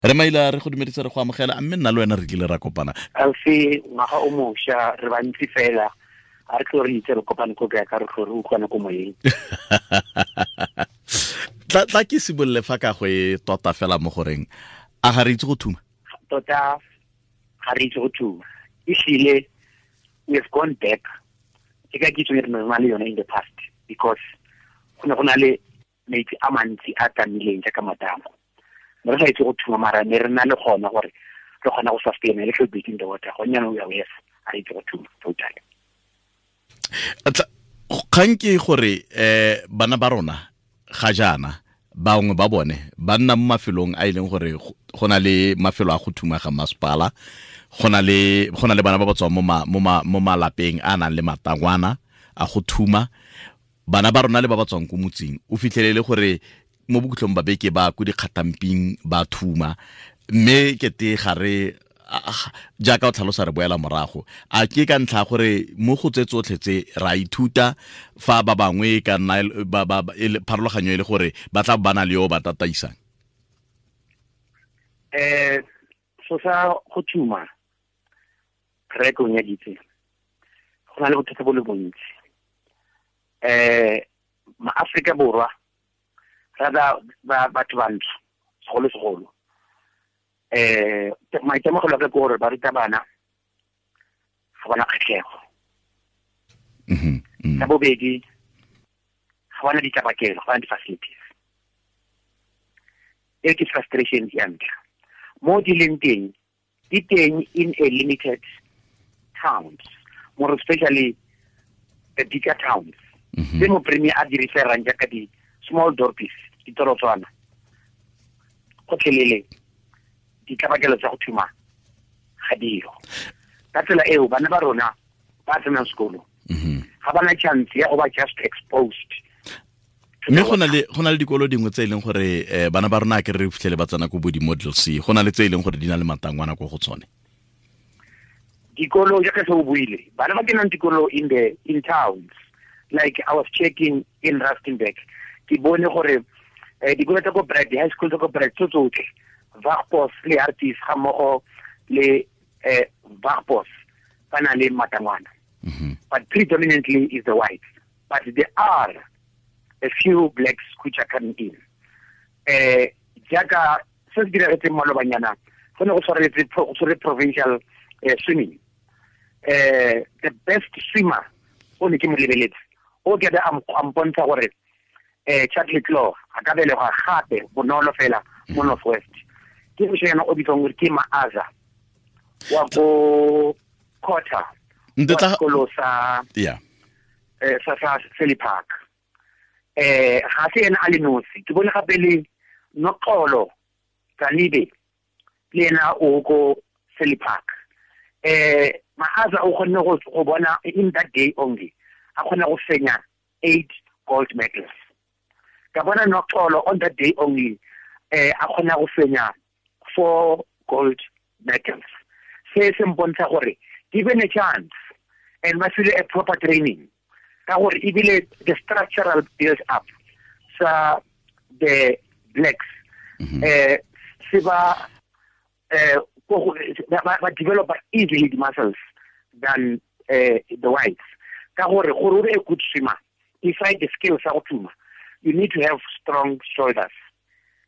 Re Maila, re go dumedisa, re go amogela, a mme nna le wena re tlile ra kopana. Alfe, ngwaga o mošwa, re bantsi fela, a re tlo re itse re kopane ko kae, ka re tlo re utlwane ko moyeng. Tla ke simolole fa ka go e tota fela mo goreng a ga re itse go thuma? Tota ga re itse go thuma. Ehlile we have gone back. Ke ka kitso e re nang le yone in the past, because go ne go na le metsi a mantsi a tamileng jaaka matamo. Ne re sa itse go thuma, mara ne re na le gona gore re kgona go sustain a little bit in the water. Go nyana we are yes, a itse go thuma totally. Kgang ke gore bana ba rona ga jaana bangwe ba bone ba nna mo mafelong a e leng gore go na le mafelo a go thuma ga masepala, go na le bana ba ba tswang mo malapeng a nang le matangwana a go thuma. Bana ba rona le ba ba tswang ko motseng o fitlhelele gore mo bokhutlong ba beke ba ko dikgatamping ba thuma, mme kete ga re jaaka o tlhalosa re boela morago. A ke ka ntlha gore mo go tse tsotlhe tse ra ithuta fa ba bangwe ka nna pharologanyo e le gore ba tla ba na le yo ba tataisang? So sa go thuma re ko nyaditse go na le bothata bo le bontsi. Ma-Afrika Borwa rather batho bantsho segolo segolo, maitemogelo a ka ke gore ba ruta bana ga bona kgatlhego. Sa bobedi, ga bona ditlabakelo, ga bona di-facilities. E ke frustration ya ntlha. Mo di leng teng, di teng in a limited towns, more especially the bigger towns. Tse mo premier a di referang jaaka di small dorpies, ditorotswana. Gotlhelele ditlabakelo tsa go thuma ga dilo. Ka tsela eo bana ba rona ba tsenang sekolo ga bana chance ya go ba just exposed. Mme go na le dikolo dingwe tse e leng gore bana ba rona a ke re fitlhele ba tsena ko bo di-model C, go na le tse e leng gore di na le matangwana ko go tsone. Dikolo jaaka se o buile, bana ba kenang dikolo in towns, like I was checking in Rustenburg, ke bone gore dikolo tsa ko Brad, high school tsa ko Brad tso tsotlhe, Wagpos le Harties ga mmogo le Wagpos ba na le matangwana. But predominantly is the whites. But there are a few blacks which are coming in. Jaaka se se diragetseng malobanyana, go ne go tshwareletse go tshwere provincial swimming. The best swimmer o ne ke mo lebeletse, o ke be a mpontsha gore Charlie Claw a ka belegwa gape bonolo fela mo North West. Ke moshanyana o bitswang gore ke Maaza wa ko Quarter, wa sekolo sa sa Selly Park. Ga se ena a le nosi, ke bone gape le Noxolo Kanibe le ena o ko Selly Park. Maaza o kgonne go bona in that day only, a kgona go fenya 8 gold medals. Ka bona Noxolo on that day only, a kgona go fenya 4 gold medals. Se se mpontsha gore given a chance and ba file a proper training, ka gore ebile the structural build up sa the blacks, se ba ba develop easily the muscles than the whites. Ka gore gore o be a good swimmer, beside the skills sa go thuma, you need to have strong shoulders,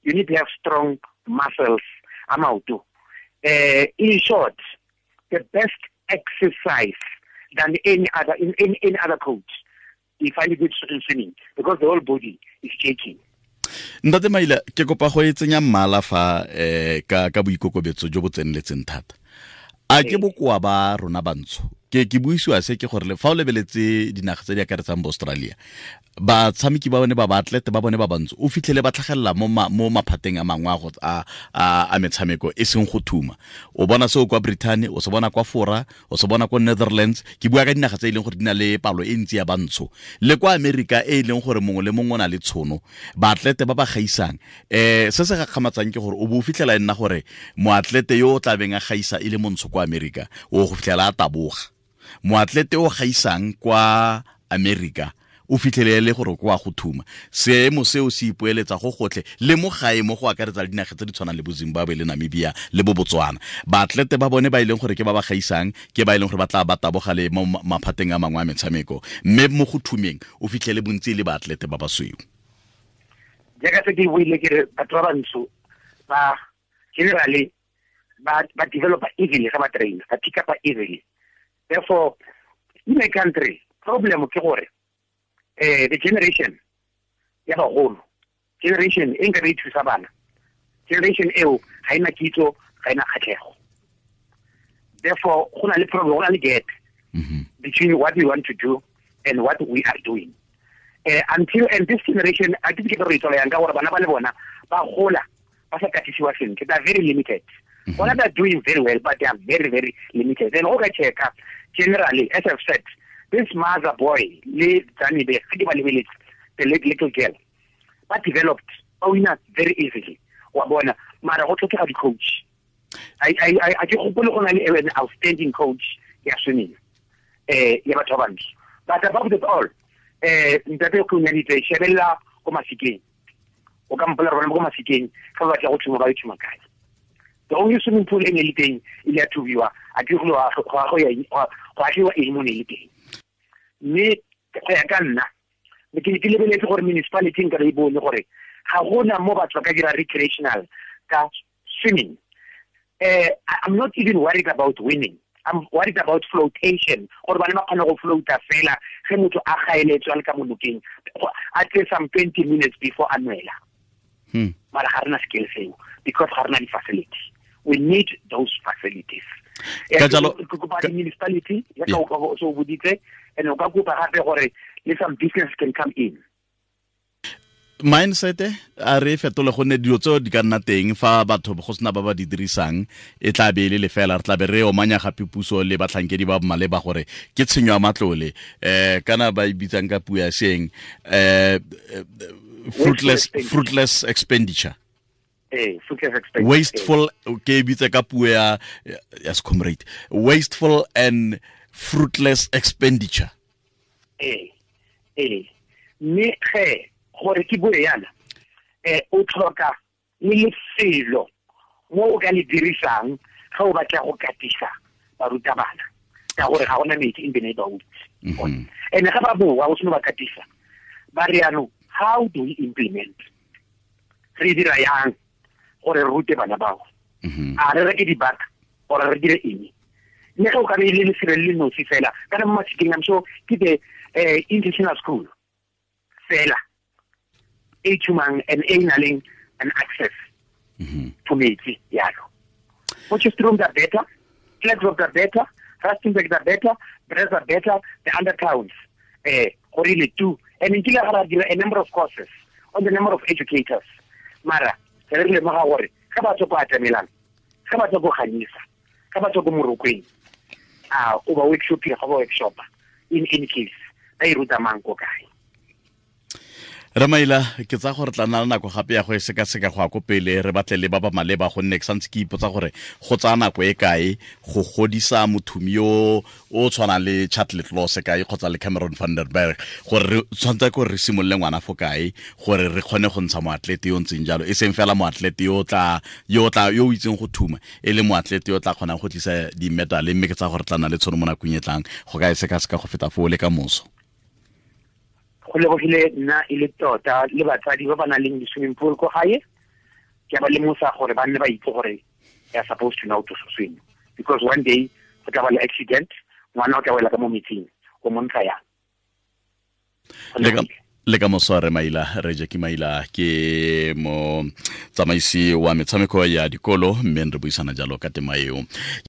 you need to have strong muscles a maoto. In short, the best exercise than any other in any other coach, you find it good in swimming because the whole body is shaking. Ntate Maila, ke kopa go e tsenya mmala fa ka boikokobetso jo bo tseneletseng thata. A ke bokoa ba rona bantsho? Ke buisiwa se ke gore fa o lebeletse dinaga tse di akaretsang bo Australia, batshameki ba bone ba baatlete ba bone ba bantsho o fitlhele ba tlhagelela mo maphateng a mangwe a metshameko e seng go thuma. O bona seo kwa Britain, o se bona kwa Fora, o se bona kwa Netherlands. Ke bua ka dinaga tse e leng gore di na le palo e ntsi ya bantsho, le kwa America e e leng gore mongwe le mongwe o na le tshono, baatlete ba ba gaisang. Se se gakgamatsang ke gore o bo o fitlhela e nna gore moatlete yo o tlabeng a gaisa e le montsho kwa America, o go fitlhela a taboga. Moatlete o gaisang kwa America o fitlhele le gore kwa go thuma seemo seo se ipoeletsa go gotlhe le mo gae mo go akaretsa le dinaga tse di tshwanang le bo Zimbabwe le Namibia le bo Botswana. Baatlete ba bone ba e leng gore ke ba ba gaisang, ke ba e leng gore ba tla ba taboga le mo maphateng a mangwe a metshameko, mme mo go thumeng o fitlhele bontsi le baatlete ba basweu. Jaaka se ke buile ke re batho ba bantsho ba generally ba developa easily ga ba train, ba pick up easily. Therefore, in a country, problem ke gore the generation ya bagolo, generation e nka be e thusa bana, generation eo ga ena kitso, ga ena kgatlhego. Therefore, go na le problem, go na le gap between what we want to do and what we are doing. Until and this generation, I think ke re tswela yang ka gore bana ba le bona ba gola ba sa katisiwa sentle, they are very limited. Bona they are doing very well, but they are very, very limited. Then o ka checka generally, as I've said, this mother boy le Tsanibe, the little girl, but developed ba very easily. Wa bona mara go tlhokega di coach. I ke gopole go na le an outstanding coach ya swimming ya batho ba bantsho. But above it all, ntate o nyaditse shebella ko Mafikeng. O ka mpola rona ko Mafikeng ga ba batla go thuma ba thuma kae. The only swimming pool e ne le teng e le ya thubiwa, a ke go go agiwa eng mo ne le teng. Mme go ya ka nna ke lebeletse gore municipality nka re bone gore ga gona mo batho ba ka dira recreational ka swimming. I'm not even worried about winning. I'm worried about flotation. Gore bana ba kgone go floata fela ge motho a gaeletswe a le ka mo nokeng, at least some 20 minutes before a nwela. Mara ga rena skill seo because ga rena di-facility. We need those facilities. Ka jalo kopa municipality ya ka o so boditse, and o ka kopa gape gore le some business can come in. Mindset a re fetole gonne dilo tseo di ka nna teng fa batho go sena ba ba di dirisang, e tla be e le lefela. Re tla be re omanya gape puso le batlhankedi ba maleba gore ke tshenyo ya matlole, kana ba e bitsang ka puo ya seeng, fruitless expenditure. Wasteful, ke bitse ka puo ya yes comrade, wasteful and fruitless expenditure. Mme ge gore ke bue yana, o tlhoka le lefelo mo o ka le dirisang ga o batla go katisa barutabana, ka gore ga gona metsi in the neighborhood. And ga ba boa o seno ba katisa, ba re yanong how do we implement? Re dira yang gore re rute bana bao? A re reke dibaka gore re dire eng? Mme ge o ka be le lefelo le le nosi fela, kana mo Mafikeng, I'm sure ke the international school fela e thumang and e naleng an access to metsi yalo. Potchefstroom are better, Klerksdorp are better, Rustenburg are better, Brits are better, the undertowns gore le two. And nkile ga ra dira a number of courses on the number of educators. Mara re re lemoga gore ga ba tswa ko Atamelang, ga ba tswa ko Ganyesa, ga ba tswa ko Morokweng, a o ba workshopile, ga ba workshopa in any case ba e ruta mang ko kae. Ramaila, ke tsa gore tla nna le nako gape ya go e sekaseka go ya ko pele, re batle le ba ba maleba, gonne ke santse ke ipotsa gore go tsaya nako e kae go godisa mothumi yo o tshwanang le Charlie Klose kae kgotsa le Cameron van der Berg, gore re tshwanetse gore re simolole ngwana fo kae gore re kgone go ntsha moatlete yo ntseng jalo, e seng fela moatlete yo o itseng go thuma, e le moatlete yo tla kgonang go tlisa di-medal. Mme ke tsa gore tla nna le tshono mo nakong e tlang go ka e sekaseka go feta foo le ka moso. Go lebogile nna e le tota le batsadi ba ba nang le di-swimming pool ko gae, ke a ba lemosa gore ba nne ba itse gore they are supposed to know to swim, because one day go tla ba le accident, ngwana o tla wela ka mo metsing, o mo ntsha yang. Le ka moso re Maila, re Jackie Maila ke mo tsamaisi wa metshameko ya dikolo, mme re buisana jalo ka tema eo.